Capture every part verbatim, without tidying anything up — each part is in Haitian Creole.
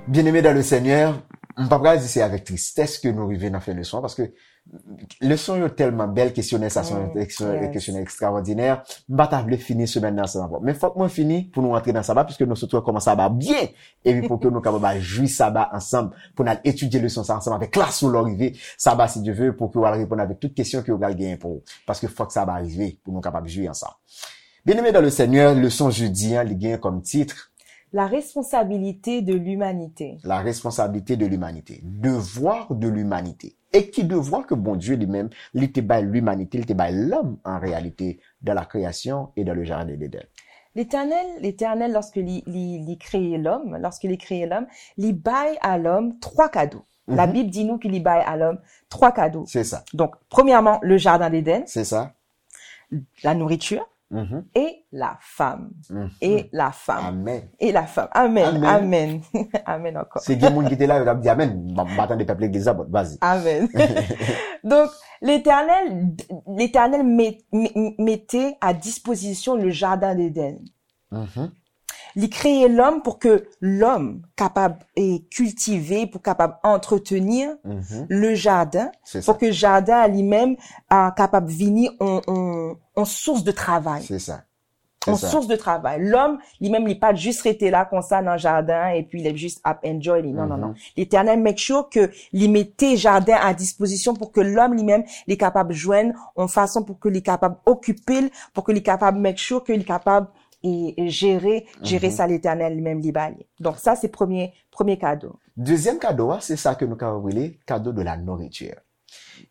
Byeneme dan le Senyè, m pa pral di se avèk tristès ke nou rive nan fen leson an, paske leson yo tèlman bèl, kesyonè sa se yon kesyonè ekstrawòdinè. M pa ta vle fini semèn nan ansanm avè w. Men fòk mwen fini pou nou antre nan saba, piske nou sot wè kòman saba byen, epi pou ke nou kapab al jwi saba ansanm, pou n al etidye leson sa ansanm avèk klas ou lè w rive saba, si Dye ve, pou ke w al reponn avèk tout kesyon ke yo pral genyen pou ou. Paske fòk saba rive pou nou kapab jwi ansanm. Byeneme dan le Senyè, leson jodi an, li genyen kòm tit, La responsabilité de l'humanité. La responsabilité de l'humanité. Devoir de l'humanité. E ki devwa ke Bondye li menm, li te bay limanite, li te bay lòm an reyalite, dans la création et dans le jardin d'Éden. L'Éternel, l'Éternel, lorsque li, li, li kreye lòm, lorsque li kreye lòm, li bay a lòm twa kado. La Mhm. Bible dit nous qu'il li bay a lòm twa kado. Se sa. Donc, premièrement, le jardin d'Éden, Se sa. la nourriture Mhm. et la femme. Mhm. Et la femme. Amèn. Et la femme. Amen. Amen. Amen. Amen encore. Se gen moun ki te la, yo t ap di amèn. M pa tande pèp legliz la, bon, vas-y. Amen. Donc, l'Éternel, l'Éternel met- met- mettait à disposition le jardin d'Éden. Mhm. Li kreye lòm pou ke lòm kapab eh, kiltive, pou kapab antreteni Mhm. le jardin, Se sa. pou ke jaden an li menm ah, kapab vini on, on, on sous de travay. Se sa. Se On sa. Sous de travay. Lòm, li menm, li pa t jis rete la konsa nan jaden an, epi li jis ap enjoy li. Non, non, non. Mhm. Letènèl make sure ke li mete jaden a dispozisyon pou ke lòm li menm, li kapab jwenn on fason pou ke li kapab okipe l, pou ke li kapab make sure ke li kapab e, e jere, jere Mhm. sa Letènèl li menm li ba li. Donk sa se premye, premye kado. Dezyèm kado a, se sa ke nou kapab rele kado de la nourriture.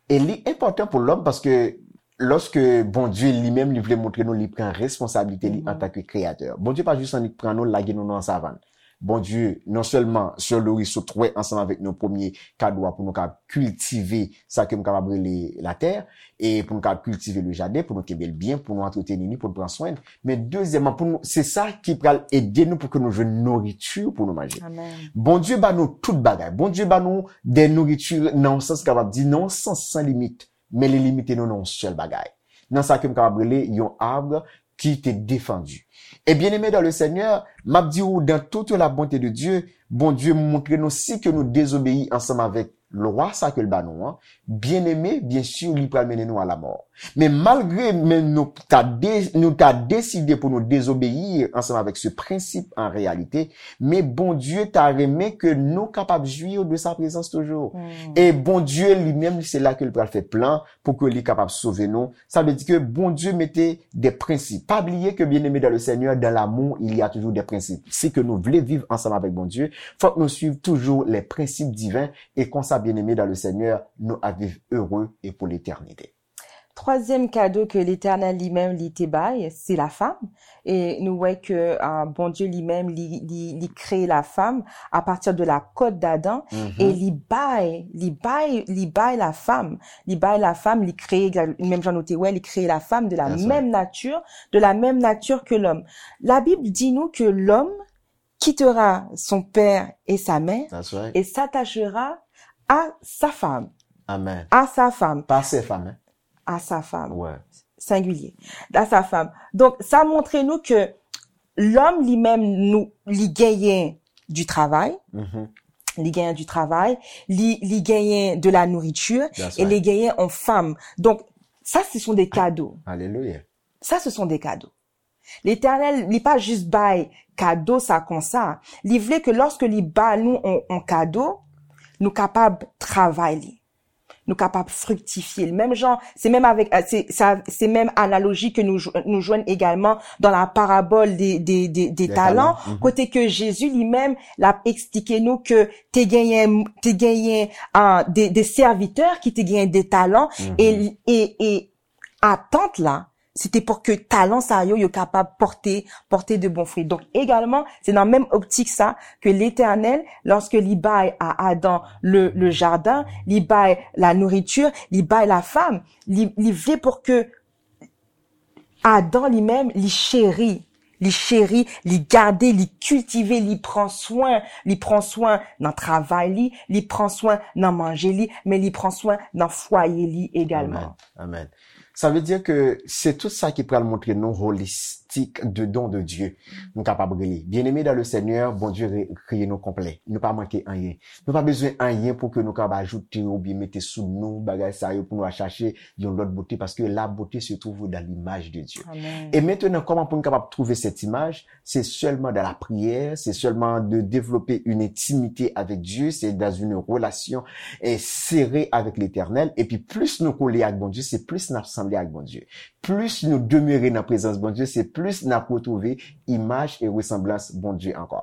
E li enpòtan pou lòm paske lòske Bondye li menm li vle montre nou li pran responsablite li Mhm. antanke kreyatè. Bondye pa jis annik pran nou lage nou nan savann. Bondye, non sèlman Sè Loris sot wè ansanm avèk nou premye kado a pou nou ka kiltive sa ke m kapab rele latè, e pou nou ka kiltive le jaden, pou nou kenbe l byen, pou nou antreteni li, pou nou pran swen l. Men dezyèmman, pou nou, se sa ki pral ede nou pou ke nou jwenn nouriti pou nou manje. Amen. Bondye ba nou tout bagay. Bondye ba nou de nouriti nan yon sans kapab di, nan yon sans san limit. Men li limite nou nan yon sèl bagay. Nan sa ke m kapab rele yon arbre qui était défendu. E byeneme dan le Senyè, m ap di ou, dans toute la bonté de Dieu, Bondye montre nou si ke nou dezobeyi ansanm avèk lwa sa ke l ba nou an, byeneme, byen si, li pral mennen nou a lamò. Men malgre men nou ta de, nou ta deside pou nou dezobeyi ansanm avèk se prensip an reyalite, men Bondye ta renmen ke nou kapab jwi de sa prezans toujou. E Bondye li menm, se la ke l pral fè plan pou ke li kapab sove nou. Sa vle di ke Bondye mete de prensip. Pa bliye ke byeneme dan le Senyè, dans l'amour, il y a toujours des principes. Si ke nou vle viv ansanm avèk Bondye, fòk nou swiv toujou les principes divins e konsa, byeneme dan le Senyè, nou ap viv ere e pou letènite. Twazyèm kado ke Letènèl li menm li te bay, se la fam. E nou wè ke ah, Bondye li menm li, li, li kreye la fam a pati de la kòt d'Adan e li bay, li bay, li bay la fam, li bay la fam, li kreye, menm jan nou te wè, li kreye la fame de la That's right. Même nature, de la même nature que l'homme. La Bible dit nous que l'homme quittera son père et sa mère That's right. Et s'attachera à sa femme. Amen. À sa femme. Pa se fam, hein? À sa femme. Ouais. Singulier. À sa femme. Donk, sa montre nou ke lòm li menm nou, li genyen du travail, Mhm. li genyen du travail, li, li genyen de la nourriture, That's e li right. genyen on fam. Donk, sa se sont des cadeaux. Alelouya. Sa se sont des cadeaux. Letènèl, li pa jis bay kado sa konsa. Li vle ke lòske li ba nou on, on kado, nou kapab travay li. Nou kapab friktifye l. Menm jan, se menm avèk, se, sa, se menm analoji ke nou, jw- nou jwenn egalman dans la parabole des, des, des, des Des talents, talents, mhm. Kote ke Jezi li menm, l ap eksplike nou ke te genyen, te genyen ah, de, de sèvitè ki te genyen de talan, e, e, e atant la, se te pou ke talan sa yo, yo kapab pòte, pòte de bon fwi. Donk, egalman, se nan menm optik sa ke Letènèl, lòske li bay a Adan le, le jaden, li bay la nourriture, li bay la fam, li, li vle pou ke Adan li menm, li cheri, Li cheri, li gade, li kiltive, li pran swen. Li pran swen nan travay li, li pran swen nan manje li, men li pran swen nan fwaye li egalman. Amen. Amen. Sa vle di ke se tout sa ki pral montre nou holistic de don de Dieu. Nou kapab rele. Bien-aimés dans le Seigneur, Bondye re- kreye nou konplè. Nou pa manke anyen. Nou pa bezwen anyen pou ke nou kapab ajoute oubyen mete sou nou bagay sa yo pou nou al chache yon lòt bote, paske la beauté se trouve dans l'image de Dieu. Amen. E mentnan, kòman pou nou kapab trouve cette image? C'est seulement dans la prière, c'est seulement de développer une intimité avec Dieu, c'est dans une relation eh, serrée avec l'Éternel. Epi plis nou kole ak Bondye, se plis n ap sanble ak Bondye. Plis nou demere nan prezans Bondye, se plis n ap retwouve imaj e resanblans Bondye ankò.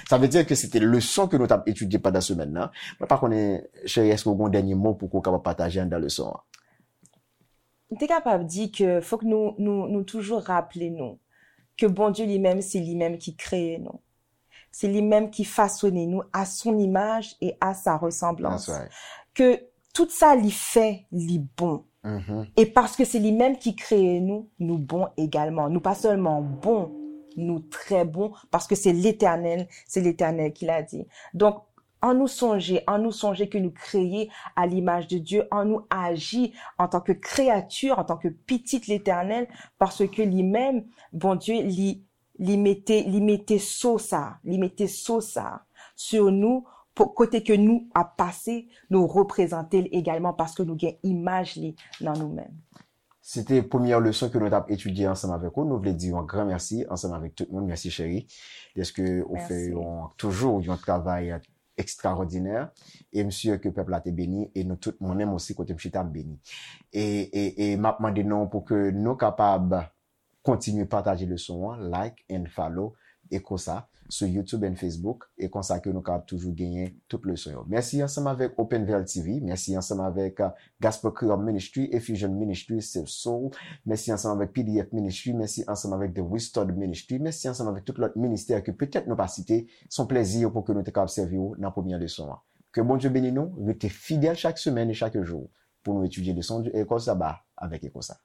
Sa vle di ke se te leson ke nou t ap etidye pandan semèn nan. Mwen pa konnen, cheri, èske w gen yon dènye mo pou ke w kapab pataje anndan leson an? M te kapab di ke fòk nou, nou, nou toujou raple nou ke Bondye li menm, se li menm ki kreye nou. Se li menm ki fasone nou à son image et à sa ressemblance. That's right. Ke tout sa li fè, li bon. Mhm. E paske se li menm ki kreye nou, nou bon egalman. Nou pa sèlman bon, nou trè bon, paske se Letènèl, se Letènèl ki la di. Donk, an nou sonje, an nou sonje ke nou kreye à l'image de Dieu, an nou aji antanke kreyati, antanke pitit Letènèl, paske li menm, Bondye, li, li mete, li mete so sa, li mete so sa sou nou, pou, kote ke nou ap pase, nou reprezante l egalman paske nou gen imaj li nan nou menm. Se te premyè leson ke nou t ap etidye ansanm avèk ou. Nou vle di yon gran mèsi ansanm avèk tout moun. Mèsi, cheri, dèske ou fè Mèsi. Yon, toujou yon travay ekstraòdinè. E m si ke pèp la te beni, e nou tout, mwen menm osi, kote m chita, m beni. E, e, e m ap mande nou pou ke nou kapab kontinye pataje leson an, like and follow, e konsa, sou YouTube and Facebook, e konsa ke nou kapab toujou genyen tout leson yo. Mèsi ansanm avèk Open Veil T V, mèsi ansanm avèk uh, Gospel Creole Ministry, Effusion Ministry, Save Soul, mèsi ansanm avèk P D F Ministry, mèsi ansanm avèk The Restored Ministry, mèsi ansanm avèk tout lòt ministè ke petèt nou pa site. Se yon plèzi pou ke nou te kapab sèvi w nan premyè leson an. Ke Bondye beni nou, rete fidèl chak semèn e chak jou pou nou etidye leson e kòd saba avèk e konsa.